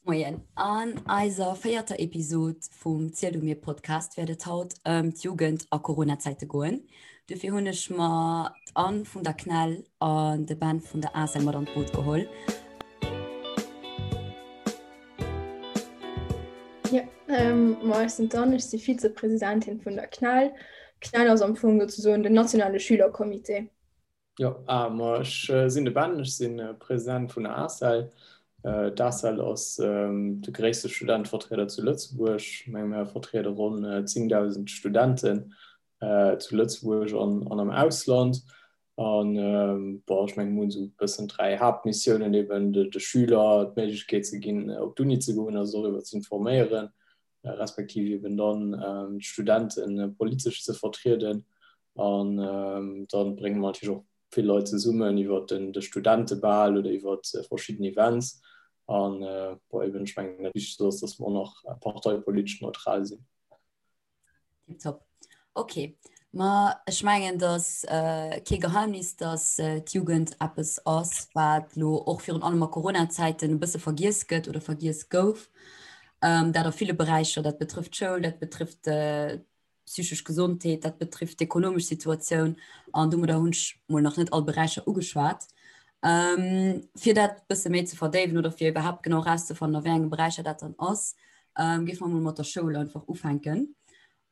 Moien, an eiser véierter Episod vum Ziel du mir Podcast wäert et haut ëm d'Jugend a Coronazäite goen. Dofir hunn ech mer d'Anne vun der CNEL an de Ben vun der ACEL mat an d'Boot geholl. Jo, ma ech sinn d'Anne, ech si Vizepresidentin vun der CNEL. CNEL ass am Fong souzesoen den nationale Schülercomité. Jo, ma ech sinn de Ben, ech si President vun der ACEL. D'ACEL ass de gréisste Studentevertrieder zu Lëtzebuerg. Ech menge mir vertriede ronn 10.000 Studenten zu Lëtzebuerg an am Ausland. An bon, ech menge mir hunn esou e bëssen 3 Haaptmissiounen, eben de Schüler d'Méiglechkeet ze ginn op d'Uni ze goen a se doriwwer ze informéieren, respektiv eben dann d'Studente politesch ze vertrieden. An dann brénge mer natierlech och vill Leit zesummen iwwer de Studentebal oder iwwer verschidden Events. An bon, eben, ech mengen dat Wichtegst ass, dass mer och nach parteipolitesch neutral sinn. Tiptop. Ok, ma ech mengen, et ass kee Geheimnis, dass d'Jugend eppes ass, wat elo och virun allem a Coronazäiten e bësse vergiess gëtt oder vergiess gouf. Dat a ville Beräicher, dat betrëfft d'Schoul, dat betrëfft d'psychesch Gesondheet, dat betrifft d'ekonomesch Situatioun an domadder hunn ech mol nach net all Beräicher ugeschwat. Fir dat bësse méi ze verdéiwen oder fir iwwerhaapt genau erauszefannen, a wéi enge Beräicher dat dann ass, géife mer mol mat der Schoul einfach ufänken.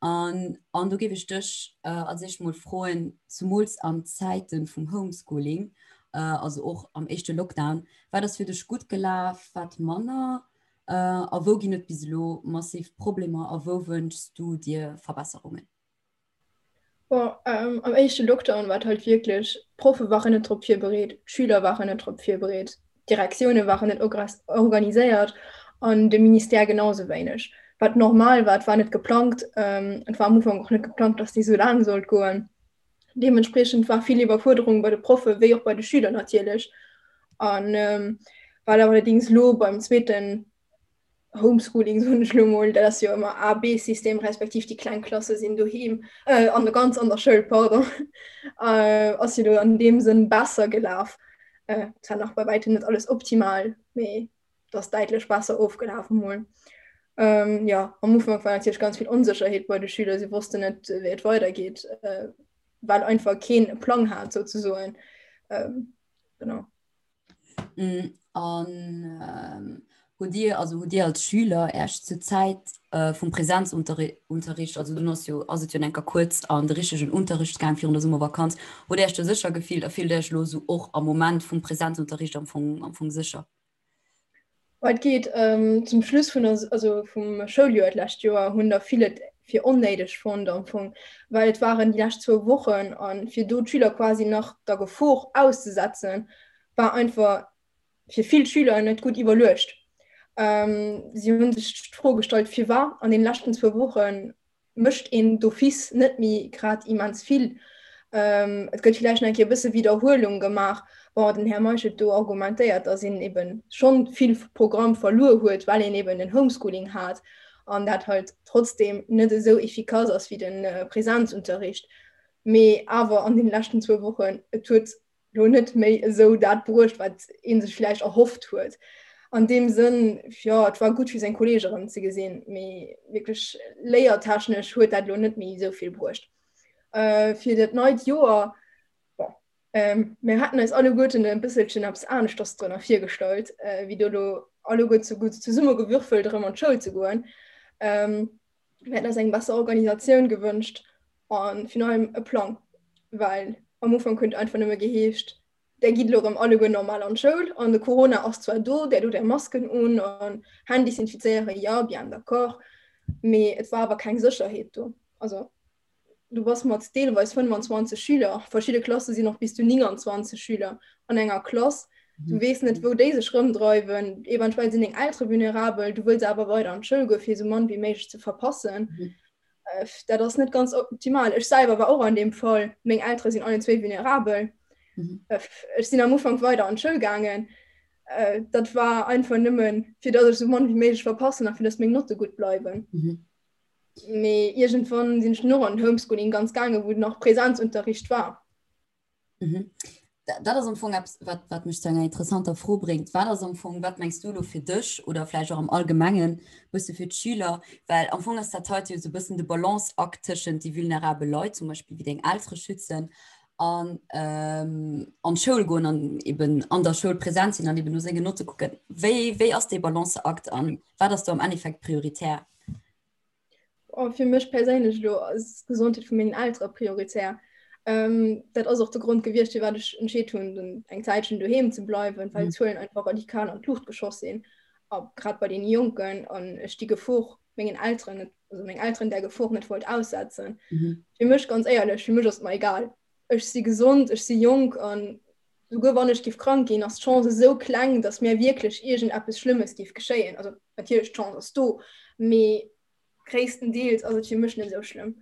An an do géif ech dech als éischt mol froen, zumools an Zäite vum Homeschooling, also och am éischte Lockdown, wat ass fir dech gutt gelaf, wat manner? A wou ginn et bis elo massiv Problemer a wou wënschs du dir Verbesserungen? Bon, am éischte Lockdown war et halt wierklech, d'Proffe waren net drop virbereet, d'Schüler waren net drop virbereet, d'Direktioune waren net organiséiert an de Ministère genau sou wéineg. Wat normal war, et war net geplangt, et war am Ufank och net geplangt, datt déi sou laang sollt goen. Deementspriechend war vill Iwwerfuerderung bei de Proffe wéi och bei de Schüler natierlech. An wat allerdéngs elo beim zweeten Homeschooling, soen ech elo mol, dat ass jo ëmmer A-B-System, respektiv déi kleng Klasse sinn doheem, an der ganz an der Schoul, pardon, ass jo elo an deem Sënn besser gelaf. Zwar nach bei wäitem net alles optimal, mee et ass däitlech besser ofgelaf emol. Jo, am Ufank war natierlech ganz vill Onsécherheet bei de Schüler, si wossten net, wéi et weidergeet, well einfach keen e Plang hat souzesoen. Genau. An hutt Dir, also hutt Dir als Schüler Äech zur Zäit vum Präsenzunterricht, also dunn ass jo, ass et jo enker kuerz an de richtegen Unterricht gaang virun der Summervakanz, hutt Dir Äech do sécher gefillt a fillt Dir Äech elo esou och am Moment vum Präsenzunterricht am Fong, am Fong sécher? Et geet zum Schluss vun der, also vum Schouljoer d'lescht Joer hunn der vill et fir onnéideg fonnt am Fong, well et waren déi lescht zwou Wochen a fir do d'Schüler quasi nach der Gefor auszesetzen, war einfach fir vill Schüler net gutt iwwerluecht. Si hu sech d'Fro gestallt, firwat an den leschten zwou Woche mécht een d'office net méi grad immens vill. Et gëtt villäicht nach eng Kéier e bësse Widderhuelung gemaach. Bon, den Här Meisch huet do argumentéiert, datt een eben schonn vill Programm verluer huet, well een eben den Homeschooling hat an dat halt trotzdeem net esou efficace ass wéi de Präsenzunterricht. Mee awer an den leschten zwou Wochen, et huet lo net méi esou dat bruecht, wat ee sech vläicht erhofft huet. An deem Sënn, jo, et war gutt fir seng Kolleege erëm ze gesinn, mee wierklech léiertechnesch huet dat lo net méi esou vill bruecht. Fir dat neit Joer, bon, mir haten eis alleguerten e bësselchen eppes aneschters drënner virgestallt, wéi do lo alleguer zu gutt zesummegewürfelt erëm an d'Schoul ze goen. Mir hätten eis eng besser Organisatioun gewënscht an virun allem e Plang, well am Ufank huet et einfach nëmme geheescht, där gitt elo erëm alleguer normal an d'Schoul an de Corona ass zwar do, där dot är Masken un an Hänn desinfizéieren, jo, bien d'accord, mee et war awer keng Sécherheet do. Also du bass mat deelweis 25 Schüler, verschidde Klasse sinn och bis zu 29 Schüler an enger Klass, du weess net, wou déi sech rëmdreiwen, eventuell sinn deng Eltere vulnerabel, du wëlls awer weider an d'Schoul goen, fir esou mann wéi méiglech ze verpassen. Dat ass net ganz optimal. Ech selwer war och an deem Fall, meng Eltere sinn allen zwéi vulnerabel. Ech sinn am Ufank weider an d'Schoul gaangen, dat war einfach nëmmen, fir datt ech esou mann wéi méiglech verpassen a fir datt meng Notte gutt bleiwen. Mee iergendwann sinn ech dunn och an den Homeschooling ganz gaangen, wou nach Präsenzunterricht war. Mhm. Dat ass am Fong eppes, wat, wat mech zu enger interessanter Fro bréngt. Wat ass am Fong, wat mengs du elo fir dech oder vläicht och am Allgemengen bësse fir d'Schüler? Well am Fong ass dat heite jo esou e bëssen de Balanceakt tëschent déi vulnerabel Leit, zum Beispill wéi deng Eltere schützen, an an d'Schoul goen an eben an der Schoul präsent sinn an eben no sengen Notte kucken. Wéi, wéi ass dee Balanceakt an wat ass do am Endeffekt prioritär? Oh, fir mech perséinlech elo ass d'Gesondheet vu mengen Eltere prioritär. Ähm, dat ass och de Grond gewiescht, firwat ech entscheet hunn, dann eng Zäitchen doheem ze bleiwen, well d'Zuelen einfach radikal an d'Luucht geschoss sinn, a grad bei deene Jonken, an ech déi Gefor mengen Elteren net, also meng Elteren där Gefor net wollt aussetzen. Mhm. Fir mech ganz éierlech, fir mech ass et mer egal. Ech si gesond, ech si jonk an souguer wann ech giff krank ginn, ass d'Chance esou kleng, datt mir wierklech iergendeppes Schlëmmes giff geschéien. Also natierlech d'Chance ass do, mee gréisstendeels ass et fir mech net esou schlëmm.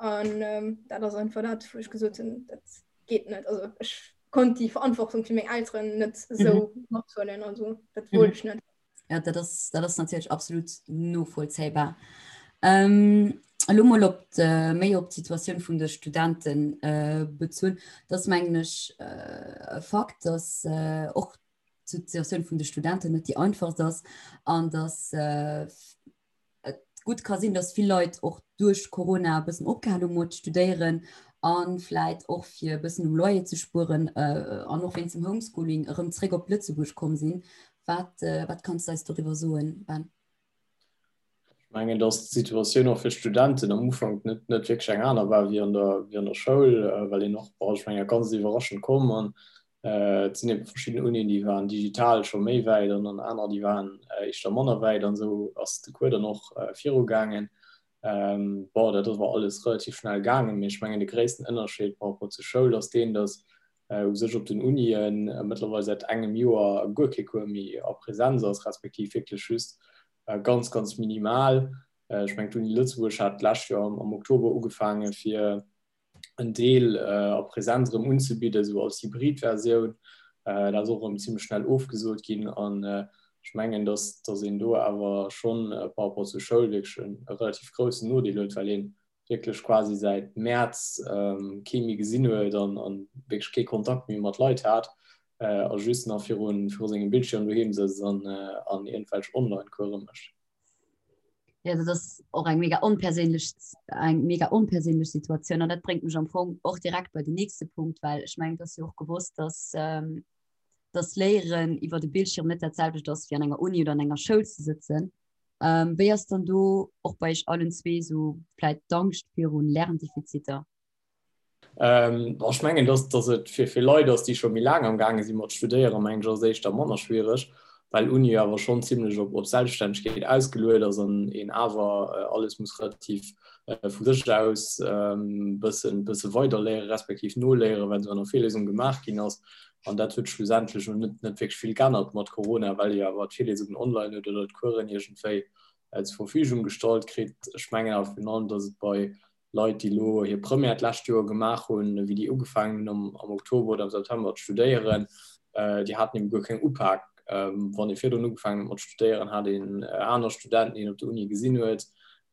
An ähm, dat ass einfach dat, wou ech gesot hunn, dat geet net. Also ech konnt déi Verantwortung fir meng Elteren net esou mhm. mathuelen, also dat wollt mhm. ech net. Ja, dat ass, dat ass natierlech absolut novollzéibar. Ähm, elo mol op de, méi op d'Situatioun vun de Studenten äh, bezunn. Dat ass, mengen ech, äh, e Fakt, dass äh, och d'Situatioun vun de Studenten net déi einfachst ass an dass äh, et gutt ka sinn, dass vill Leit och duerch Corona e bëssen opgehal hu mat studéieren a vläit och fir e bëssen um Loyer ze spueren an och wéinst dem Homeschooling erëm zréck op Lëtzebuerg komm sinn. Wat, wat kanns de eis doriwwer soen, Ben? Ech mengen, dass d'Situatioun och fir d'Studenten am Ufank net, net wierklech eng aner war wéi an der, wéi an der Schoul, well een och, bon, ech mengen, ganz iwwerraschend komm an Et sinn ebe verschidden Unien, déi waren digital scho méi wäit an dann aner, déi waren éischter manner wäit an esou ass de Cours dann och virugaangen. Bon, dat ass awer alles relativ schnell gaangen, mee ech mengen de gréissten Ënnerscheed par rapport zur Schoul ass deen, datt u sech op den Unien mëttlerweil säit engem Joer guer kee Cours méi a Präsenz ass, respektiv wierklech just ganz, ganz minimal. Ech mengen d'Uni Lëtzebuerg hat d'lescht Joer am Oktober ugefaange fir en Deel a Präsenz erëm unzebidden, esou als Hybridversioun. Dat ass och erëm zimmlech schnell ofgesot ginn. An ech mengen, dass, dass een do awer schonn par rapport zur Schoul wierklech e relativ groussen Nodeel huet, well ee wierklech quasi säit Mäerz kee méi gesinn huet an wierklech kee Kontakt méi mat Leit hat a just nach viru sengem Bildschierm doheem sëtzt an iergendwelch Online-Course mécht. Ja, dat ass och eng mega onperséinlech eng mega onperséinlech Situatioun an dat bréngt mech am Fong och direkt bei den nächste Punkt, well ech mengen, et ass jo och gewosst, dass ähm, dass Léieren iwwer de Bildschirm net dat selwecht ass wéi an enger Uni oder an enger Schoul ze sëtzen. Ähm, wéi ass dann do och bei iech allen zwee sou vläit d'Angscht virun Lerndefiziter? Ähm, ech mengen, dass, dass et fir, fir Leit ass, déi scho méi laang am gaange si mat studéieren, mengen ech, ass et éischter manner schwiereg, well Uni awer schonn zimlech op, op Selbststännegkeet ausgeluet ass an een awer äh, alles muss relativ äh, vu sech aus ähm, bëssen, bësse weiderléieren, respektiv noléieren, wat an der Virlesung gemaach ginn ass. An dat huet schlussendlech och net, net wierklech vill geännert mat Corona, well ee awer d'Virlesungen online huet oder d'Coursen iergendwéi äh, zur Verfügung gestallt kritt. Ech mengen awer virun allem, dass et bei Leit, déi elo hir Première d'lescht Joer gemaach hunn, wéi déi ugefaangen hunn am Oktober oder am September ze studéieren, déi haten ebe guer keng Upak. Wann ee virdrun ugefaangen huet mat studéieren, hat een aner Studenten, déi een op der Uni gesinn huet.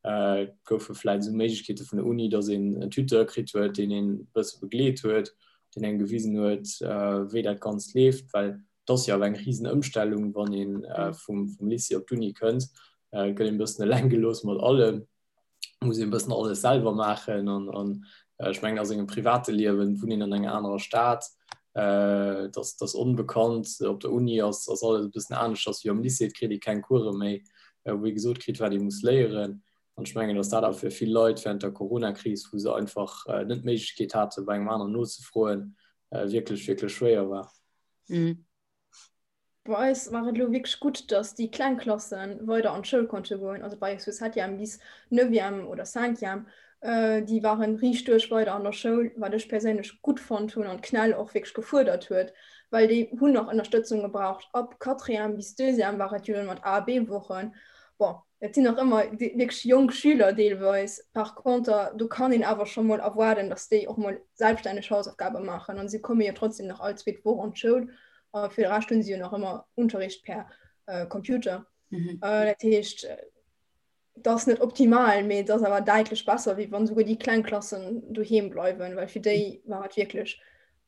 Et goufe vläicht esou Méiglechkeete vun der Uni, datt een en Tuteur kritt huet, deen een e bësse begleet huet, deen engem gewisen huet, wéi dat Ganzt leeft, well et ass jo awer eng risen Ëmstellung, wann ee vum Lycée op d'Uni kënnt. Et gëtt een e bëssen eleng gelooss mat allem. muss een bëssen alles selwer maachen an an ech mengen a sengem private Liewen wunnt een an enger anerer Stad, äh, dass dass onbekannt op der Uni ass ass alles e bëssen aneschters wéi am Lycée, et kritt ee keng Course méi, wou ee gesot kritt wat ee muss léieren an ech mengen, dass dat awer fir vill Leit während der Coronakris, wou se einfach net d'Méiglechkeet hate bei engem aneren nozefroen, wierklech wierklech schwéier war. Mhm. Bei eis war et elo wierklech gutt, datt déi kleng Klasse weider an d'Schoul konnte goen, also bei eis vu Septième bis Neuvième oder Cinquième, déi ware riicht duerch weider an der Schoul, wat ech perséinlech gutt fonnt hunn an d'CNEL och wierklech gefuerdert huet, well déi hunn nach Ënnerstëtzung gebraucht. Ab Quatrième bis Deuxième war et jo dann mat A a B-Wochen. Bon, et sinn nach ëmmer wierklech jonk Schüler deelweis, par conter do kann een awer scho mol erwaarden, datt déi och mol selbststänneg Hausaufgabe maachen an si komme jo trotzdem nach all zweet Woch an d'Schoul. A fir de Rescht hunn si jo nach ëmmer Unterricht per äh, Computer. Mhm. Äh, dat heescht, dat ass net optimal, mee et ass awer däitlech besser, wéi wann souguer déi kleng Klassen doheem bleiwen, well fir déi war et wierklech.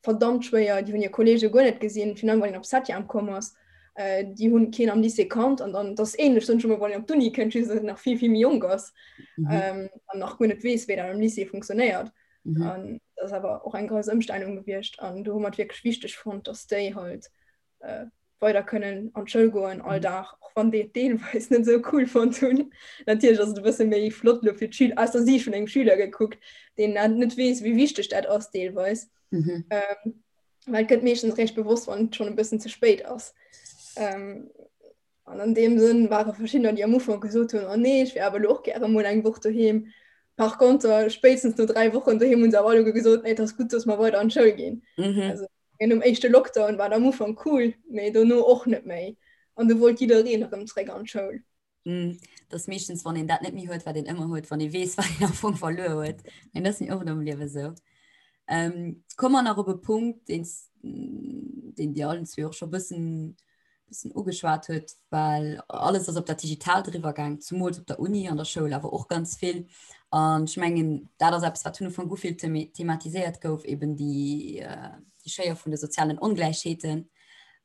verdammt schwéier, déi hunn hir Kolleege guer net gesinn, virun allem wann een op Septième komm ass, déi hunn keen am Lycée kannt an dann, dat ass ähnlech, soen ech emol, wann een op d'Uni kënnt, just dass een nach vill, vill méi jonk ass an nach guer net weess, wéi dat am Lycée funktionéiert. An dat ass awer och eng grouss Ëmstellung gewiescht an do hu mer et wierklech wichteg fonnt, dass déi halt weider kënnen an d'Schoul goen all Dag, och wann déi et deelweis net esou cool fonnt hunn. Natierlech ass et e bësse méi flott elo fir d'Schüler, aus der Siicht vun engem Schüler gekuckt, deen dat net weess, wéi wichteg dat ass deelweis. Mhm. Ähm, well et gëtt meeschtens réischt bewosst, wann et schonn e bëssen ze spéit ass. Ähm, an an deem Sënn ware verschiddener, déi am Ufank gesot hunn, oh nee, ech wär awer elo och gäre mol eng Woch doheem. Par contre, spéitstens no 3 Wochen doheem hunn se awer alleguer gesot, nee, et ass gutt, dass mer weider an d'Schoul ginn. Mhm. Also, Nom éischte Lockdown war et am Ufank cool, mee dono och net méi. An du wollt jiddereen erëm zréck an d'Schoul. Dat ass meeschtens, wann een dat net méi huet, wat een ëmmer huet, wann ee weess, wat een am Fong verluer huet. Mee dat ass méi oft am Liewe sou. Komme mer nach op e Punkt, deen deen Dir allen zwee och scho bëssen bëssen ugeschwat huet, well alles ass op dat Digitaalt eriwwer gaang, zumools op der Uni, an der Schoul awer och ganz vill. An ech mengen, dat ass eppes, wat vun Ufank u vill thematiséiert gouf, eben déi, äh, déi Schéier vun de sozialen Ongläichheeten.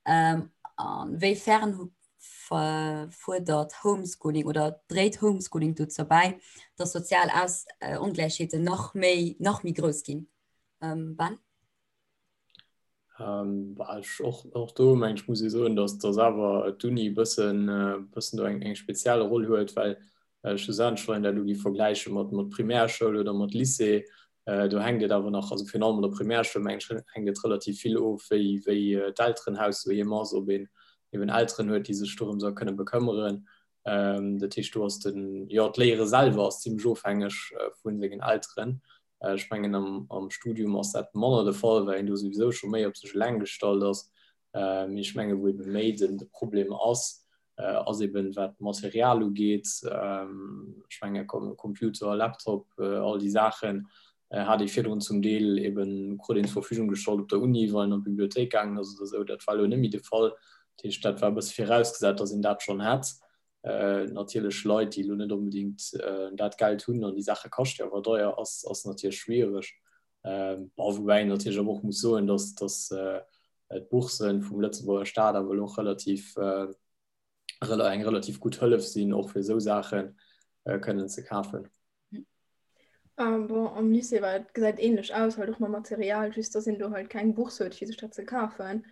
Ähm, an wéi fern fuerdert Homeschooling oder dréit Homeschooling dozou bäi, dass sozial Aus äh, Ongläichheeten nach méi, nach méi grouss ginn? Ähm, Ben? Ähm, ech, och, och do meng ech muss ee soen, datt datt awer d'Uni e bëssen, bëssen do eng, eng speziell Roll huet, well schlussendlech, wann een dat elo géif vergläiche mat, mat Primärschoul oder mat Lycée, do hänkt et awer nach, also virun allem an der Primärschoul meng ech, hänkt et relativ vill of, wéi, wéi d'Elterenhaus doheem ass, ob een eben Elteren huet, déi sech dorëms a kënne bekëmmeren. Dat heescht, do ass den, jo, d'Léiere selwer ass zimlech ofhängeg vu sengen Elteren. Ech mengen am Studium ass dat manner de Fall, well een do souwisou scho méi op sech eleng gestallt ass. Mee ech menge wou ebe méi den de Problem ass, ass eben wat d'Material ugeet. Ech menge Computer, Laptop, all déi Saachen hat ee virdrun zum Deel eben krut een zur Verfügung gestallt op der Uni, wann een an d'Bibliothéik gaangen ass oder esou. Dat war elo net méi de Fall. Dat heescht, dat war e bësse virausgesat, datt een dat schonn hätt. Natierlech Leit, déi elo net onbedéngt dat Geld hunn, an déi Saache kascht jo awer deier, ass, ass natierlech schwiereg. Bon, woubäi een natierlech awer och muss soen, datt, datt d'Boursen vum Lëtzebuerger Staat awer elo och relativ, eng relativ gutt Hëllef sinn, och fir esou Saache kënnen ze kafen. Um, bon, am Lycée war et gesäit ähnlech aus, halt och mam Material, just dass een do halt keng Bourse huet fir sech dat ze kafen.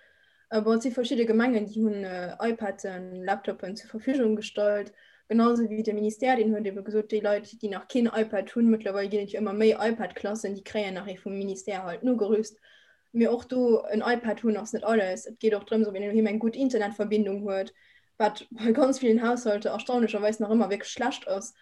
Äh, bon, et si verschidde Gemengen, déi hunn äh, iPaden, Laptopen zur Verfügung gestallt, genauso wéi de Ministère, deen huet ebe gesot, déi Leit, déi nach keen iPad hunn, mëttlerweil ginn et jo ëmmer méi iPad-Klassen, déi kréien nach ee vum Ministère halt nogerüst. Mee och do en iPad hunn ass net alles. Et geet och drëms, ob een doheem eng gutt Internetverbindung huet, wat bei ganz villen Haushalter erstaunlecherweis nach ëmmer wierklech schlecht ass.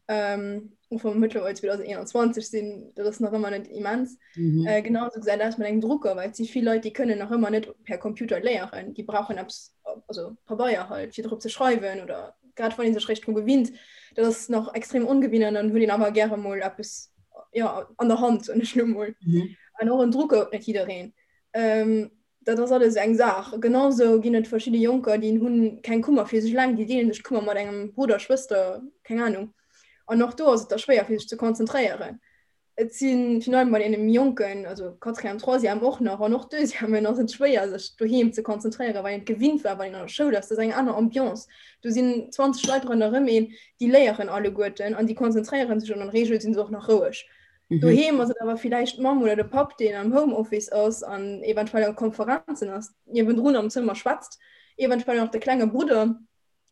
Ähm, och wa mer mëttlerweil 2021 sinn, dat ass nach ëmmer net immens. Mhm. Äh, genauso gesäit aus mat engem Drucker, well et si vill Leit, déi kënnen nach ëmmer net per Computer léieren. Déi brauchen eppes, also Pabeier halt, fir drop ze schreiwen oder grad wann ee sech réischt dru gewinnt. Dat ass nach extrem ongewinnt an dann huet een awer gäre mol eppes ja, an der Hand, soen ech lo mol. Mhm. An och en Drucker huet net jiddereen. Ähm, dat ass alles eng Saach. Genauso ginn et verschidde Jonker, déi hunn keng Kummer fir sech eleng, déi deelen sech d'Kummer mat engem Brudder, Schwëster, keng Anung. An och do ass et da schwéier fir sech ze konzentréieren. Et si virun allem bei deene méi Jonken, also Quatrième, Troisième och nach an och Deuxièmen ass et schwéier sech doheem ze konzentréieren, well een et gewinnt war, wann een an der Schoul ass. Dat ass eng aner Ambiance. Do sinn 20 Leit ronderëm een, déi léieren alleguerten an déi konzentréiere sech an an der Reegel si se och nach roueg. Mhm. Doheem ass et awer villäicht d'Mamm oder de Papp, deen am Homeoffice ass an eventuell a Konferenzen ass, niewendrun am Zëmmer schwätzt, eventuell nach de klenge Brudder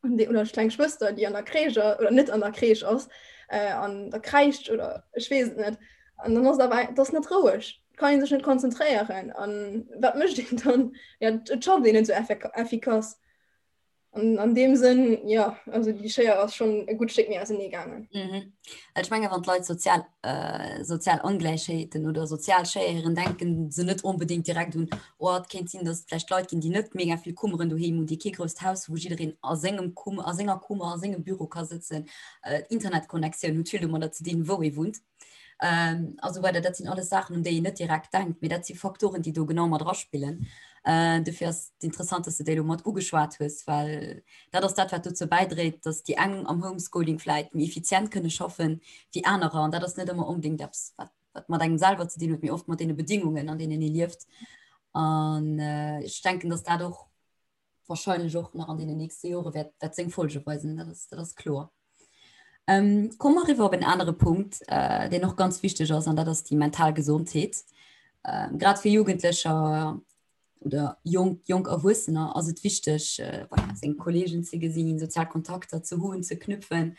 oder kleng Schwëster, déi an der Crèche oder net an der Crèche ass, äh, an da kräischt oder ech weess et net. An dann ass awer dat ass net roueg. Kann een sech net konzentréieren. An wat mécht een dann? Ja, et schafft een net sou effikass. An an deem Sënn, jo, also déi Schéier ass schonn e gutt Stéck méi ausenee gaangen. Mhm. Ech menge wann d'Leit sozial, äh, sozial Ongläichheeten oder sozial Schéieren denken se net onbedéngt direkt un, oh et kéint sinn, datt et vläicht Leit ginn, déi net mega vill Kummeren doheem hunn, déi kee grousst Haus hu wou jiddereen a sengem Kum a senger Kummer, a sengem Büro ka sëtzen. Äh, D'Internetconnectioun huet vill domadder ze dinn, wou ee wunnt. Ähm, a sou weider. Dat sinn alles Saachen, un déi een net direkt denkt, mee dat si Faktoren, déi do genau mat eraspillen. Äh, dofir ass et interessant, dass du déi elo mat ugeschwat hues, well dat ass dat, wat dozou bäidréit, dass déi eng am Homeschooling vläit méi effizient kënne schaffen wéi anerer. An dat ass net ëmmer onbedéngt eppes, wat. wat mat engem selwer ze dinn huet, mee oft mat deene Bedingungen, an deenen ee lieft. An ech denken, datt dat och wahrscheinlech och nach an deenen nächste Jore wäert, wäert seng Folge weisen, dat ass, dat ass kloer. Ähm, komme mer eriwwer op en anere Punkt, äh, deen och ganz wichteg ass, an dat ass déi mental Gesondheet. Ähm, grad fir Jugendlecher oder jonk, jonk Erwuessener ass et wichteg, äh, voilà, seng Kollegen ze gesinn, sozial Kontakter ze hunn, ze knüpfen.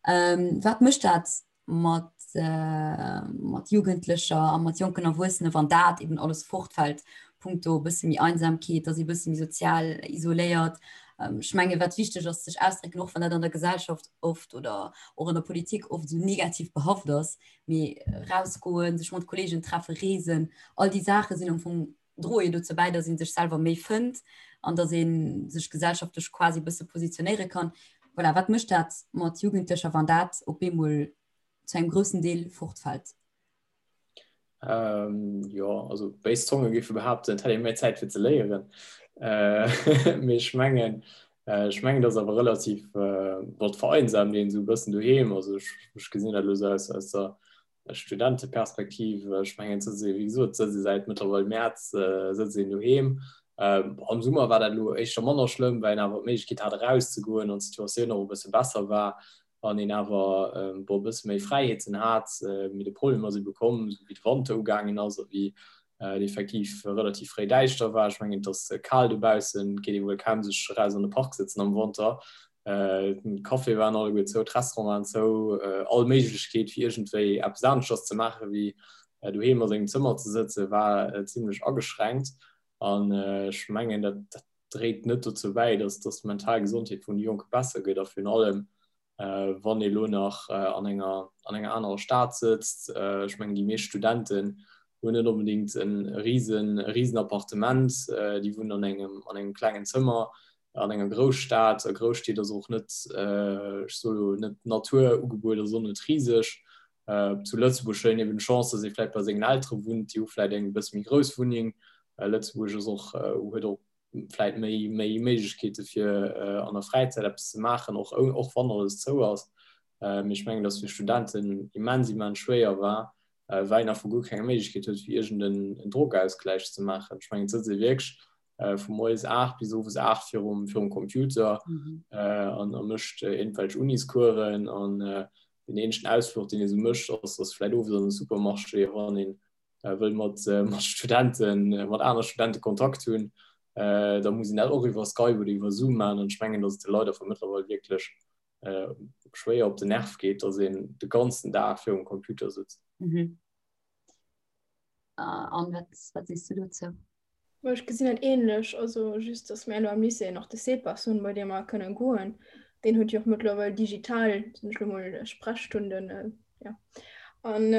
Ähm, wat mécht dat mat, äh, mat Jugendlecher a mat jonken Erwuessene, wann dat eben alles fortfällt, punkto e bësse méi Einsamkeet, dass ee bësse méi sozial isoléiert. Ähm, ech menge wat wichteg ass, sech ausdrécken, och wann dat an der Gesellschaft oft oder och an der Politik oft esou negativ behaft ass, mee rausgoen, sech mat Kollegen treffen, reesen, all déi Saache sinn am Fong droe jo dozou bäi, dass ee sech selwer méi fënnt an dass ee sech gesellschaftlech quasi e bësse positionéiere kann. Voilà, wat mécht dat mat Jugendlecher, wann dat op eemol zu engem groussen Deel fortfält? Ähm, jo, also béis Zonge géife behaapten, et hätt ee méi Zäit fir ze léieren. Äh, mee ech mengen, äh, ech mengen, dat ass awer relativ äh, wat vereinsamt een esou e bëssen doheem. Also ech, ech gesinn dat elo sou aus, aus der Studenteperspektiv. Ech mengen, et sëtzt ee, wéi gesot, et sëtzt ee säit mëttlerweil Mäerz äh, sëtzt een doheem. Ähm, am Summer war dat elo éischter manner schlëmm, well een awer d'Méiglechkeet hat erauszegoen an d'Situatioun och e bësse besser war. an een awer bon e bësse méi Fräiheeten hat, mee de Problem ass ebe komm, esou wéi de Wanter ugaangen ass a wéi et effektiv relativ fréi däischter war. Ech mengen, et ass kal dobaussen, et geet ee wuel kaum sech eraus an de Park sëtzen am Wanter. D'Caféë waren alleguer zou, d'Restaurante waren zou, all Méiglechkeet fir iergendwéi eppes aneschters ze maache wéi doheem a sengem Zëmmer ze sëtzen, war zimmlech ageschränkt. An ech mengen, dat dréit net dozou bäi, dass dass d'mental Gesondheet vun de Jonke besser gëtt a virun allem wann ee lo nach an enger an enger anerer Stad sëtzt. Ech mengen déi meescht Studenten hunn net onbedéngt e risen e risen Appartement, déi wunnen an engem an engem klengen Zëmmer an enger Grousstad. A Grousstied ass och net, ech soe lo net d'Natur ugebueden ass och net riseg. Zu Lëtzebuerg huet een eben d'Chance, dass ee vläicht bei sengen Eltere wunnt, déi hu vläicht eng e bësse méi grouss Wunneng. Lëtzebuerg ass och, huet och vläicht méi, méi Méiglechkeete fir an der Fräizäit eppes ze maachen, och, och wann alles zou ass. Mee ech mengen, dass fir Studenten immens, immens schwéier war, well een einfach guer keng Méiglechkeet huet, fir iergend en Drogausgläich ze maachen. Ech mengen, et sëtzt ee wierklech vu moies 8 bis owes 8 virum, virum Computer an a mécht iergendwelch Uniscoursen an den eenzegen Ausfluch, deen ee sou mécht, ass, ass vläicht owes an de Supermarché, wann een wëll mat, mat Studenten, mat aner Studente Kontakt hunn, da muss een dat och iwwer Skype oder iwwer Zoom maachen. An ech mengen, datt et de Leit einfach mëttlerweil wierklech schwéier op den Nerv geet, datt een de ganzen Dag virum Computer sëtzt. Mhm. An wat, wat sees du dozou? Ma ech gesinn dat ähnlech, also just dass mir elo am Lycée nach de CEPAS hunn, bei deem mer kënnen goen. Deen huet jo och mëttlerweil digital, soen ech elo mol, Sprechstunden, jo. An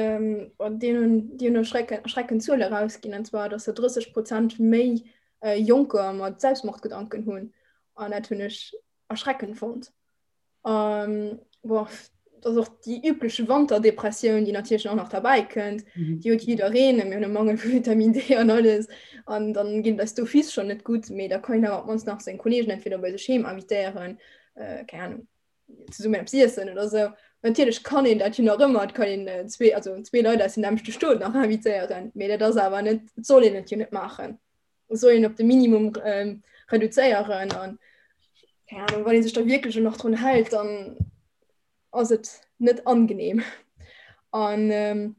bon, deen hunn, déi hunn erschrecken, erschreckend Zuele erausginn, an zwar dass se 30 Prozent méi Jonker mat Selbstmordgedanken hunn. An dat hunn ech erschreckend fonnt. Um, boah, das och déi übliche Wanterdepressioun, déi natierlech och nach derbäi kënnt. Mhm. Déi huet jiddereen, mir hunn e Mangel vu Vitamin D an alles. An dann ginn eis d'office schon net gutt, mee da kann een awer op d'mannst nach seng Kollegen entweder bei sech heem invitéieren, äh, keng Ahnung, zesummen eppes iessen oder sou. Natierlech kann een dat jo nach ëmmer, et kann een äh, zwee, also zwee Leit aus dem nämmlechte Stot nach invitéieren, mee dat ass awer net, et soll een et jo net maachen. soll een op de Minimum ähm, reduzéieren an keine Ahnung, wann een sech da wierklech nach drun hält, dann ass et net angenehm. An ähm,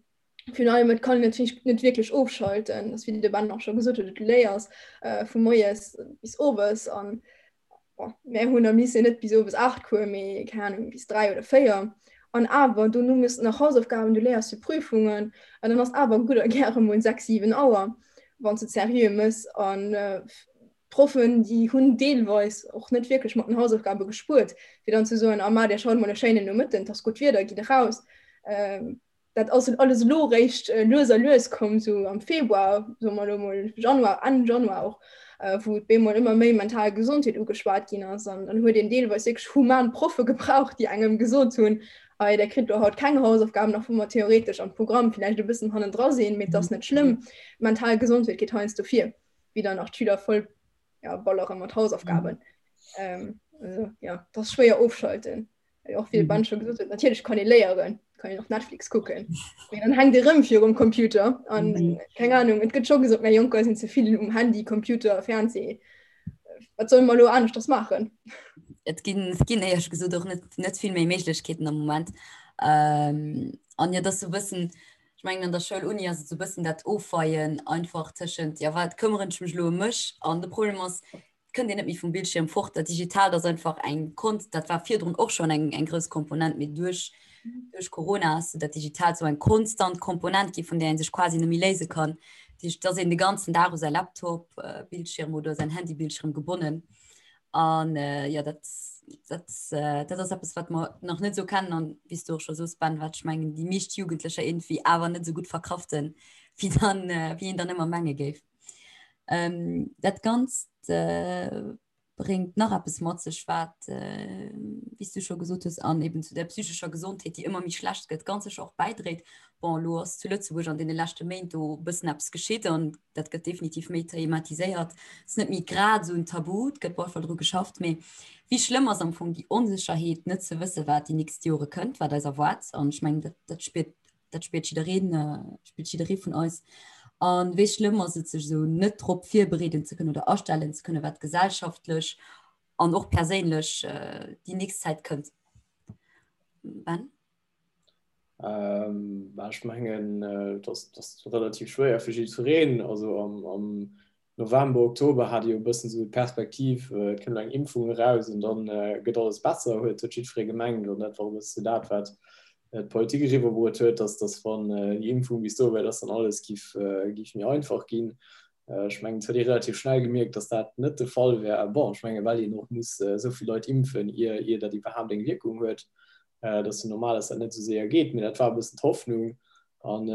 virun allem et kann een natierlech net wierklech ofschalten, das wéi de Ben och scho gesot huet, du léiers äh, vu moies bis owes an Mär hunn am Lycée net bis owes 8 Cours, mee keng Ahnung bis 3 oder 4. An awer dono méchs de nach Hausaufgaben, du léiers fir Prüfungen an dann ass awer gutt a gäre mol 6, 7 Auer, wann s de et seriö méchs. An d'Proffen, déi hunn deelweis och net wierklech mat den Hausaufgabe gespuert, fir dann ze soen, ah ma dir schaut mol e schéinen Nomëtten, et ass gutt Wieder, gitt eraus. Dat ass alles elo réischt lues a lues komm, sou am Februar, soe mer elo mol Januar, Enn Januar och, wou et bemol ëmmer méi mental Gesondheet ugeschwat ginn ass. An dann huet een deelweis wierklech human Proffe gebraucht, déi engem gesot hunn, hei der kritt elo haut keng Hausaufgaben, och wa mer theoretesch am Programm villäicht e bëssen hannendra sinn, mee et ass net schlëmm, mental Gesondheet geet heiansdo vir, wéi dann nach d'Schüler voll ja, ballere mat Hausaufgaben. Ähm, also, ja, dat ass schwéier ofschalten. Och wéi de Ben scho gesot huet, natierlech kann ee léieren. Kann een och Netflix kucken. Mee dann hänkt ee rëm virum Computer an mhm. keng Ahnung, et gëtt scho gesot, mär Jonker sinn ze vill um Handy, Computer, Fernseh. Wat solle mer elo aneschters maachen? Et ginn, et ginn éierlech gesot och net, net vill méi Méiglechkeeten am Moment. Ähm, an jo, dass sou bëssen, ech mengen an der Schoul, Uni ass et sou bëssen dat Ofweien einfach tëschent, ja wat këmmeren ech mech elo ëm mech? An de Problem ass, et kënnt een net méi vum Bildschierm fort. Dat Digitaalt ass einfach eng Kont, dat war virdrun och schonn eng, eng grouss Komponent, mee duerch, duerch Corona ass dat Digitaalt sou eng konstant Komponent gi vun där ee sech quasi net méi léise kann. Dat heescht, et ass een de ganzen Dag u säi Laptop-Bildschierm oder säin Handy-Bildschierm gebonnen. An jo, dat, dat, dat ass eppes, wat mer nach net esou kennen an, wéi s du och scho soos, Ben, wat ech mengen, déi meescht Jugendlecher iergendwéi awer net esou gutt verkraften, wéi dann, wéi een dann ëmmer menge géif. Dat Ganzt bréngt nach eppes mat sech, wat, wéi s du scho gesot hues, an eben zu der psychescher Gesondheet, déi ëmmer méi schlecht gëtt, ganz sécher och bäidréit. Bon, elo ass zu Lëtzebuerg an deene leschte Méint do e bëssen eppes geschitt an dat gëtt definitiv méi thematiséiert. Et ass net méi grad esou en Tabu, et gëtt op alle Fall dru geschafft. Mee wéi schlëmm ass am Fong déi Onsécherheet, net ze wësse wat déi nächst Jore kënnt, wat eis erwaart? An ech mengen, dat, dat spiert, dat spiert jiddereen, spiert jidderee vun eis. A wéi schlëmm ass et, sech esou net drop virbereeden ze kënnen oder astellen ze kënnen, wat gesellschaftlech an och perséinlech déi nächst Zäit kënnt? Ben? Ähm, ech mengen, äh, dat ass relativ schwéier fir jiddwereen. Also am, am November, Oktober hat ee jo e bëssen esou d'Perspektiv, äh, et kënnt eng Impfung eraus an dann äh, gëtt alles besser, huet huet jiddweree gemengt. An dat war e bësse dat, wat äh, d'Politik eriwwerbruet huet, dass, dass wann äh, déi Impfung bis do wär, dass dann alles giff, äh, giff méi einfach ginn. Äh, ech mengen, et huet ee relativ schnell gemierkt, dass dat net de Fall wär. Bon, ech menge well een och muss äh, esou vill Leit impfen, ier, ier dat iwwerhaapt eng Wierkung huet. Et ass jo normal, dass dat net esou séier geet, mee dat war e bëssen d'Hoffnung. An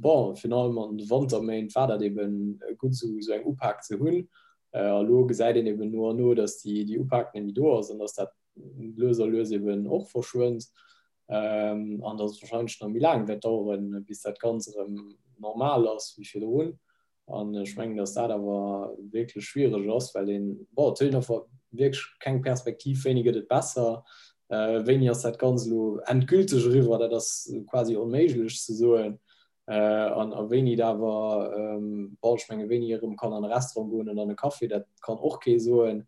bon, virun allem an de Wanterméint war dat eben gutt, esou esou eng Upak ze hunn. A lo gesäit een eben no an no, dass déi déi Upak net méi do ass an dass dat lues a lues eben och verschwënnt an dass et warscheinlech nach méi laang wäert daueren, bis dat Ganz erëm normal ass wéi virdrun. An ech mengen, datt dat awer wierklech schwiereg ass, well een, bon, et huet een einfach wierklech keng Perspektiv, wéini gëtt et besser, wéini ass dat Ganzt elo endgülteg eriwwer, dat ass quasi onméiglech ze soen. An a wéini et awer, bon, ech menge wéini ee erëm kann an e Restaurant goen an an e Café, dat kann och kee soen,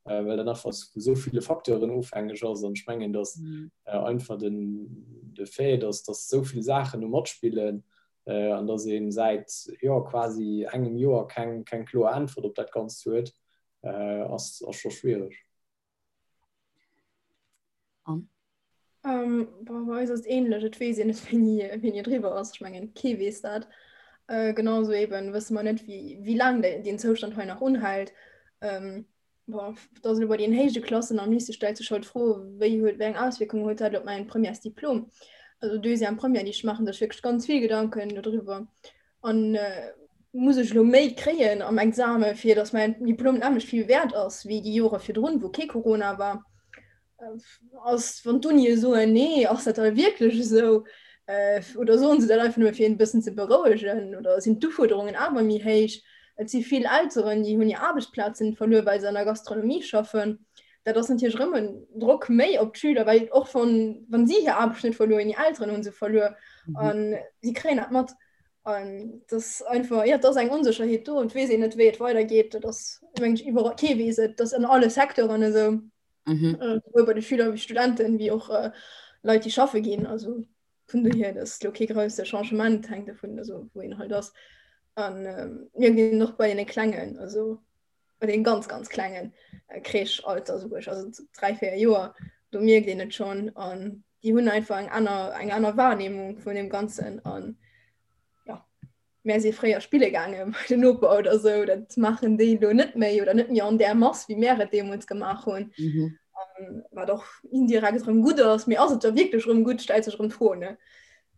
well dat einfach vu esou ville Facteuren ofhängeg ass. An ech mengen, datt einfach den, de Fait, datt datt esou vill Saachen do matspillen, an dass ee säit jo quasi engem Joer keng keng kloer Äntwert op dat Ganzt huet, ass ass scho schwiereg. Anne? Bon, bei eis ass et ähnlech, et weess een net wéini wéini et eriwwer ass. Ech mengen kee weess dat. Genau esou eben wësse mer net wéi wéi laang deen Zoustand hei nach unhält. Bon, et ass elo bei den héije Klassen am Lycée stellt sech halt d'Fro, wéi huet, wéi eng Auswierkung huet dat op mäin Premièresdiplom? Also Deuxième Première, déi ech maachen sech wierklech ganz vill Gedanken dodriwwer. An muss ech elo méi kréien am Exame fir datt mäin Diplom nämmlecht vill wäert ass wéi déi Jore virdrun, wou kee Corona war? Ass, wann d'Unie soen, nee, ass dat da wierklech esou? Oder soen se dat einfach nëmme fir een e bëssen ze berouegen? Oder sinn d'Ufuerderungen awer méi héich? Et si vill Elteren, déi hunn hir Aarbechtsplazen verluer, well se an der Gastronomie schaffen. Dat ass natierlech erëm en Drock méi op d'Schüler, well och wann, wann si hir Aarbecht net verluer hunn, hir Elteren hu se verluer a si kréien dat mat. An dat ass einfach, jo, et ass eng Onsécherheet do an et weess een net, wéi et weidergeet. Dat ass, mengen ech, iwwerall, kee weess et, dat ass an alle Secteuren esou. Mhm. Äh, sowohl bei de Schüler wéi Studenten, wéi och äh, Leit, déi schaffe ginn. Also vun dohier, das ist lo kee grousse Changement, hängt davon, also wou een halt ass. An ähm, mir ginn och bei den Klengen, also bei den ganz, ganz Klengen äh, Crèche-Alter, sou ech, also 3, 4 Joer, do mierkt een et schon. An déi hunn einfach eng aner, eng aner Wahrnehmung vun dem Ganzen. An ja. Mär si fréier spille gaange bei den Noper oder sou, dat maachen déi elo net méi oder net méi an där Mass, wéi mär et deemools gemaach hunn. Mhm. Um, wat och indirekt erëm gutt ass, mee ass et da wierklech erëm gutt, stellt sech erëm d'Fro, ne?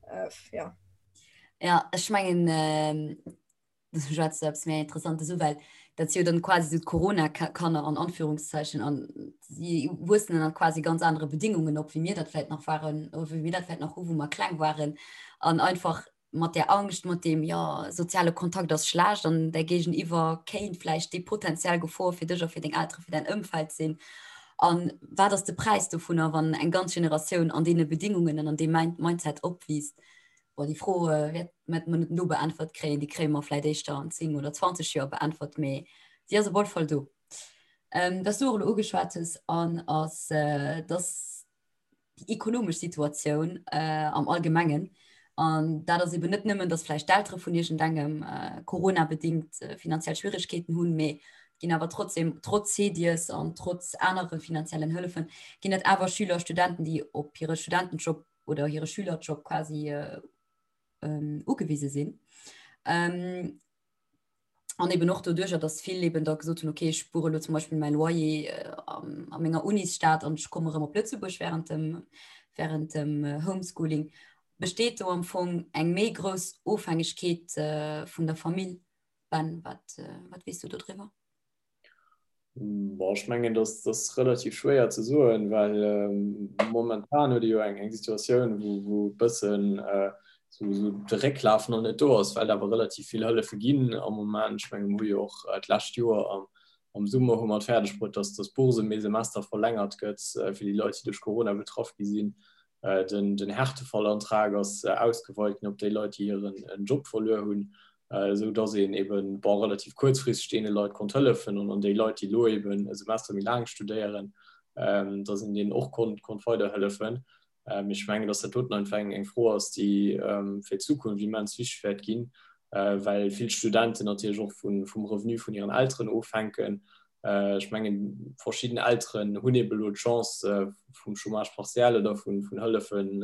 Äh, ja. Ja, ech mengen, äh, du schwätzt eppes méi Interessantes u, well dat si jo dann quasi sou d'Corona-Kanner an Anführungszeichen an si wuessen ënner quasi ganz anere Bedingungen op, wéi mir dat vläit nach waren oder wéi mir dat vläit nach hu, wou mer kleng waren an einfach mat där Angscht, mat deem, jo, soziale Kontakt ass schlecht an däi Géigeniwwer kéint vläicht déi potenziell Gefor fir dech a fir deng Eltere, fir däin Ëmfeld sinn. A wat ass de Präis dovunner, wann eng ganz Generatioun an deene Bedingungen an an deem Mindset opwiisst? Bon, déi Fro wäert mer net elo beäntwert kréien, déi kréie mer vläicht éischter an 10 oder 20 Joer beäntwert, mee si ass op alle Fall do. Wat s du och elo ugeschwat hues, an ass, dass déi ekonomesch Situatioun am Allgemengen, an dat ass eben net nëmmen, dass vläicht d'Eltere vun iergendengem coronabedingt finanziell Schwierigkeeten hunn, mee et ginn awer trotzdem, trotz CEDIES an trotz anere finanziellen Hëllefen, ginn et awer Schüler, Studenten, déi op hire Studentenjob oder hire Schülerjob quasi ugewise sinn. An eben och doduercher, dass vill eben da gesot hunn, okay, ech spuere elo zum Beispill mäi Loyer a menger Unisstad an ech komme rëm op Lëtzebuerg während dem, während dem Homeschooling. Besteet do am Fong eng méi grouss Ofhängegkeet vun der Famill? Ben, wat, wat weess du do driwwer? Bon, ech mengen, dass das relativ schwéier ze soen, well ähm, momentan huet jo eng eng Situatioun, wou, wou bëssen äh, so, so de Récklaf noch net do ass, well awer relativ vill Hëllefe ginn am Moment. Ech mengen, mir hu jo och äh, d'lescht Joer am, am Summer hu mer et fäerdeg bruet, dass dass d'Bourse ëm ee Semester verlängert gëtt äh, fir déi Leit, déi duerch Corona betraff gi sinn. Äh, den, den Härtefallantrag ass äh, ausgeweit ginn op déi Leit, déi hiren en Job verluer hunn. esou dass een eben, bon, relativ kuerzfristeg deene Leit konnt hëllefen an an déi Leit, déi elo eben e Semester méi laang studéieren, dass een deenen och konnt, konnt weiderhëllefen. Mee ech mengen, dass dat doten einfach eng, eng Fro ass, déi fir d'Zukunft immens wichteg wäert ginn, well vill Studenten natierlech och vun, vum Revenu vun hiren Elteren ofhänken. Ech mengen, verschidden Elteren hunn eben elo d'Chance vum Chômage partiel oder vun, vun Hëllefen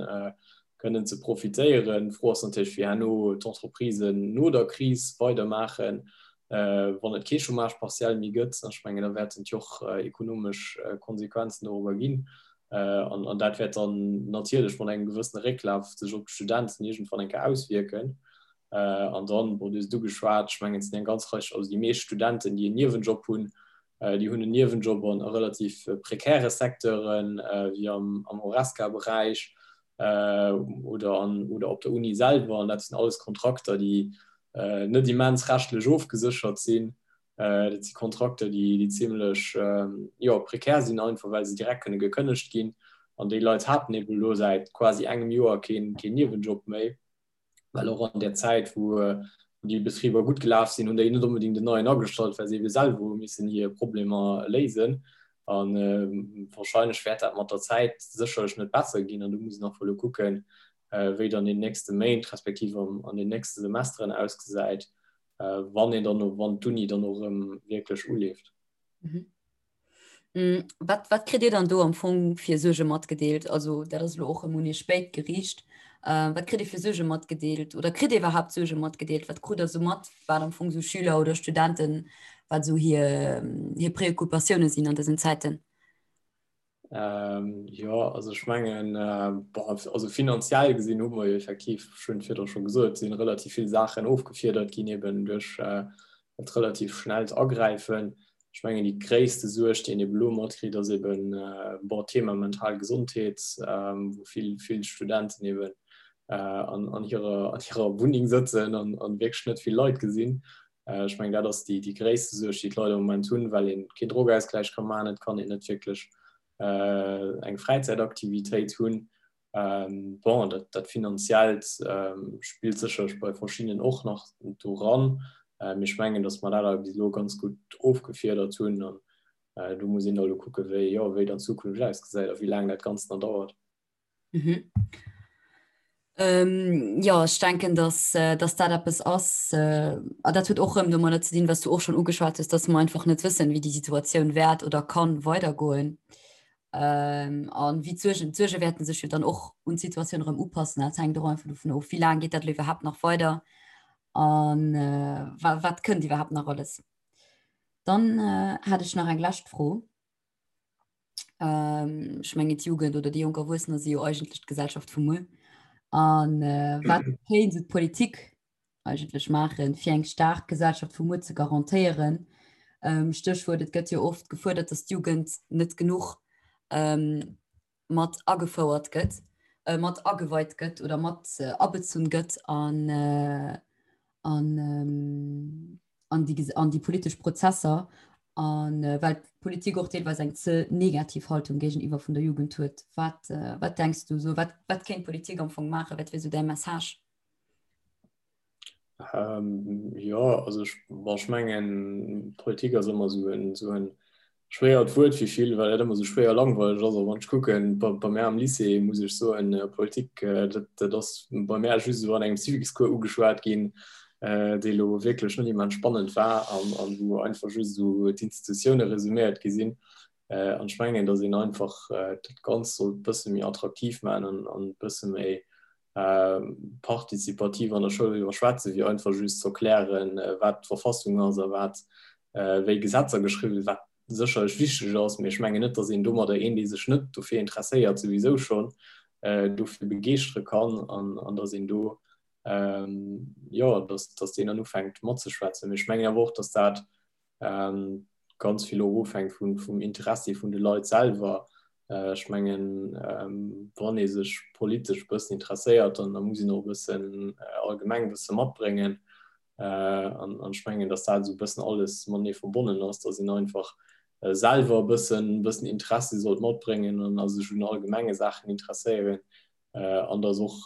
kënnen ze profitéieren. D'Fro ass natierlech, wéi herno d'Entreprisen no der Kris weidermaachen, wann et kee Chômage partiel méi gëtt. Ech mengen, da wäerten et jo och ekonomesch Konsequenzen dorobber ginn. An dat wäert dann natierlech mat engem gewëssene Récklaf sech op d'Studenten iergendwann eng Kéier auswierken. An dann, bon, du hues et ugeschwat, ech mengen, et sinn eng ganz Rei, also déi meescht Studenten, déi en Niewenjob hunn, Déi hunn en Niewenjob an a relativ prekäre Secteuren, wéi am Horesca-Beräich oder an oder op der Uni selwer. An dat sinn alles Kontrakter, déi net immens rechtlech ofgeséchert sinn. Dat si Kontrakter, déi déi zimlech, jo, prekär sinn, einfach well se direkt kënne gekënnegt ginn. An déi Leit haten ebe elo säit quasi engem Joer keen Niewenjob méi. well och an der Zäit, wou déi Betriber gutt gelaf sinn, hunn déi net onbedéngt en neien agestallt, well se ebe selwer hu missen hir Problemer léisen. A wahrscheinlech wäert dat mat der Zäit sécherlech net besser ginn. An do muss een och elo kucken, wéi et an den nächste Méint respektiv an den nächste Semesteren ausgesäit, wann een dann, wann d'Uni dann och erëm wierklech uleeft. Mm, wat, wat kritt Dir dann do am Fong fir Suerge matgedeelt? Also dat ass elo och ëm un Iech spéit geriicht. Äh, wat kritt Dir fir Suerge matgedeelt oder kritt Dir iwwerhaapt Suerge matgedeelt? Wat krut Der sou mat, wat am Fong sou Schüler oder Studenten, wat sou hir, hir Preoccupatioune sinn an dësen Zäiten? Ähm, jo, also ech mengen, äh, also finanziell gesinn hu mer jo effektiv, ech hunn et virdru scho gesot, sinn relativ vill Saachen ofgefiedert ginn eben duerch äh, dat relativ schnellt Agräifen. Ech mengen, déi gréisste Suerg, déi een eben elo matkritt, ass eben, äh, bon, d'Thema mental Gesondheet, ähm, wou vill, vill Studenten eben äh, an, an hirer, an hirer Wunneng sëtzen an, an wierklech net vill Leit gesinn. Ech mengen, dat ass déi, déi gréisste Suerg, déi d'Leit am Moment hunn, well ee keen Drogeausgläich ka maachen, et kann een net wierklech eng Fräizäitaktivitéit hunn. Bon, dat, dat Finanziellt spillt sécherlech bei verschiddenen och nach do ran. Mee ech mengen, datt mer dat awer bis elo ganz gutt ofgefiedert hunn. An do muss een da elo kucken, wéi, jo, wéi dann d'Zukunft ausgesäit a wéi laang dat Ganzt nach dauert. Mhm. Ähm, ja, ech denken, dass, äh, dass dat eppes ass, äh, a dat huet och rëm domadder ze dinn, was du och schon ugeschwat hues, dass mer einfach net wëssen, wéi déi Situatioun wäert oder kann weidergoen. Ähm, an wéi d'Suergen, d'Suerge wäerten sech jo dann och un d'Situatioun erëm upassen. Dat hänkt och einfach dovun of, wéi laang geet dat elo iwwerhaapt nach weider an äh, wa wat kënnt iwwerhaapt nach alles. Dann äh, hat ech nach eng lescht Fro. Ähm, ech mengen d'Jugend oder déi jonk Erwuessener si jo eigentlech d'Gesellschaft vu muer. An äh, wat kéint sou d'Politik eigentlech maachen, fir eng staark Gesellschaft vu muer ze garantéieren? Ähm, Stéchwuert, et gëtt jo oft gefuerdert, datt d'Jugend net genuch ähm, mat agefouert gëtt, äh, mat ageweit gëtt oder mat äh, abezunn gëtt an, äh, an, ähm, an, déi, an déi politesch Prozesser. An well d'Politik och deelweis eng ze negativ Haltung géigeniwwer vun der Jugend huet. Wat, wat denks du esou? Wat, wat kéint d'Politik am Fong maachen? Wat wier esou däi Message? Ähm, jo, also ech, bon, ech mengen, Politik ass ëmmer esou en, esou en schwéiert Wuert fir vill, well dat ëmmer esou schwéier langweileg ass. A wann ech kucken, bei, bei mär am Lycée, muss ech soen, Politik, dat, dat ass bei mär just esou an engem Civicscours ugeschwat ginn, dee lo wierklech net immens spannend war an, an wou einfach just esou d'Institutioune resuméiert gi sinn. An ech mengen, datt een einfach dat Ganzt sollt e bësse méi attraktiv maachen an, an e bësse méi partizipativ an der Schoul driwwer schwätzen, wéi einfach just ze erklären, wat d'Verfassung ass a wat wéi Gesetzer geschriwwen sinn, wat sécherlech wichteg ass, mee ech mengen net, datt een domadder een, dee sech net dofir interesséiert, souwisou schonn dofir begeeschtere kann an datt een do, jo, datt deen dann ufänkt matzeschwätzen. Mee ech mengen awer och, datt dat ganz vill och ofhänkt vun, vum Interessi vun de Leit selwer. Ech mengen, wann ee sech politesch e bëssen interesséiert, dann da muss een och e bëssen allgemeng Wësse matbréngen. An ech mengen, datt dat esou e bëssen alles matenee verbonnen ass, datt een einfach selwer e bëssen, bëssen Interessi sollt matbréngen an a sech un allgemenge Saachen interesséieren. An datt och,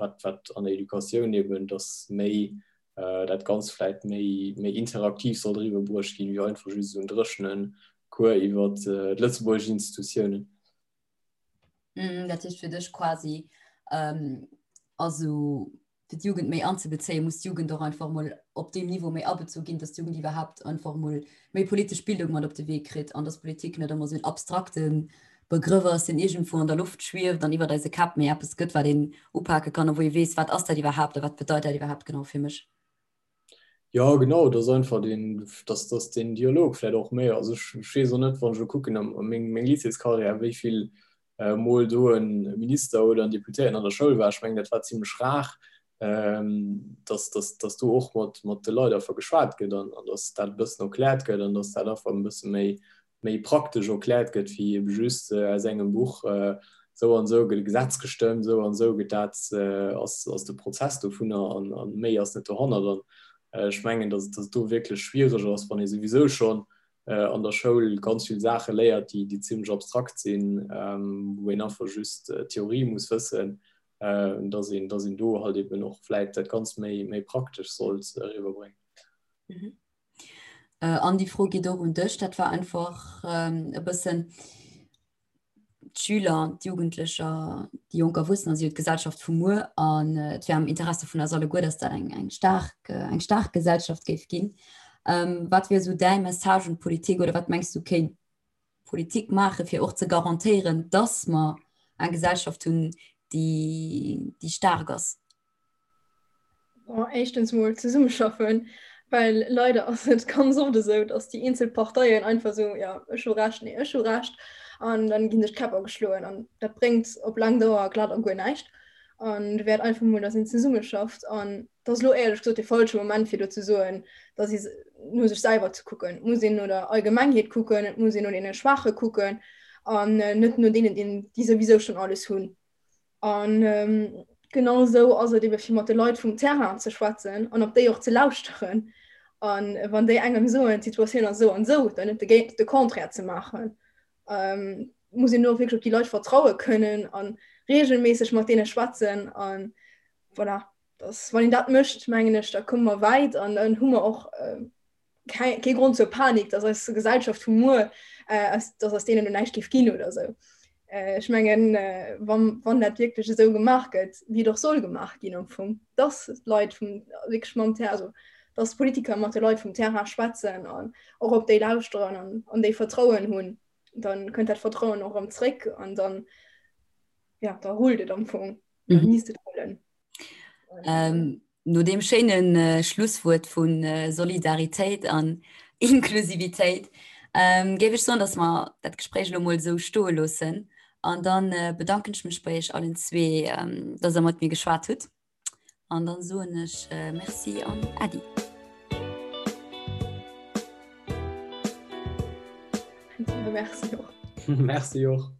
wat, wat an der Educatioun eben, datt méi dat Ganzt vläit méi, méi interaktiv sollt eriwwer bruecht ginn, wéi einfach just esou en dréchene Cours iwwer d'lëtzebuergesch Institutiounen. Dat heescht fir dech quasi, also fir d'Jugend méi anzebezéien, muss d'Jugend och einfach mol op deem Niveau méi abezu ginn, dass d'Jugend iwwerhaapt einfach mol méi politesch Bildung mat op de Wee kritt an dass Politik net ëmmer esou en abstrakte Begrëff ass, deen iergendwou an der Loft schwieft an iwwert eise Käpp, mee eppes gëtt, wat een upake kann a wou ee weess, wat ass dat iwwerhaapt a wat bedeit dat iwwerhaapt genau fir mech. Jo, genau, dass einfach deen, dass, dass deen Dialog vläicht och méi, also ech, ech weess och net, wann ech elo kucken a meng, meng Lycéescarrière, wéi vill mol do e Minister oder en Deputéierten an der Schoul war. Ech mengen, dat war zimlech rar, dass, dass, dass do och mat, mat de Leit einfach geschwat gëtt an, an dass dat e bëssen erkläert gëtt an dass dat einfach e bësse méi, méi praktesch erkläert gëtt wéi ebe just aus engem Buch, esou an esou gëtt e Gesetz gestëmmt, esou an esou gëtt dat, ass, ass de Prozess dovunner an, an méi ass net dohannert. An ech mengen, dass, dass et do wierklech schwiereg ass, wann ee souwisou schonn an der Schoul ganz vill Saache léiert, déi, déi zimlech abstrakt sinn, wou een einfach just d'Theorie muss wëssen, dass een, dass een do halt eben och vläit dat Ganzt méi, méi praktesch sollt eriwwerbréngen. An déi Fro geet och un dech. Dat war einfach e bëssen d'Schüler, d'Jugendlecher, déi jonk Erwuessener si jo d'Gesellschaft vu muer an et wär am Interesse vun eis alleguer, dass dat eng, eng staark, eng staark Gesellschaft géif ginn. Wat wier esou däi Message un d'Politik oder wat mengs du kéint d'Politik maachen, fir och ze garantéieren, dass mer eng Gesellschaft hunn, déi, déi staark ass? Bon, éischtens mol zesummeschaffen, well leider ass et ganz oft esou, dass déi eenzel Parteien einfach esou, ja, ech hu Recht, nee, ech hu Recht, an dann ginn sech d'Käpp ageschloen an dat bréngt op laang Dauer glat a guer näischt. An do wäert einfach mol, dass een zesummeschafft an et ass elo éierlech gesot de falsche Moment fir do ze soen, dass ee no sech selwer ze kucken. Et muss een no der Allgemengheet kucken, et muss een no deene Schwaache kucken an net no deenen, déi souwisou schonn alles hunn. An genau esou ass et ebe fir mat de Leit vum Terrain ze schwätzen an op déi och ze lauschteren. An wann déi engem soen, d'Situatioun ass esou an esou, dann net de, de Contraire ze maachen. Ähm, muss een och wierklech op déi Leit vertraue kënnen an regelméisseg mat deene schwätzen. An voilà, das, wann een dat mécht, mengen ech, da komme mer wäit an dann hu mer och äh, kee Grond zur Panik, dass eis Gesellschaft vu muer, äh, dass aus deenen näischt géif ginn oder sou. Äh, ech mengen, äh, wann, wann dat wierklech esou gemaach gëtt, wéi et och soll gemaach ginn am Fong, dass d'Leit vum wierklech mam Terrain, also dass d'Politiker mat de Leit vum Terrain schwätzen an och op déi lauschteren an, an déi Vertrauen hunn, dann kënnt dat Vertrauen och erëm zréck an dann, ja, da rullt et am Fong. Mhm. Misst et rullen. Ähm, no deem schéinen äh, Schlusswuert vun äh, Solidaritéit an Inklusivitéit ähm, géif ech soen, dass mer dat Gespréich elo mol esou stoe loossen. An dann äh, bedanken ech mech bei iech allen zwee, ähm, dass der mat mir geschwat hutt. An dann soen ech äh, Merci an Äddi. Merci och. Merci och.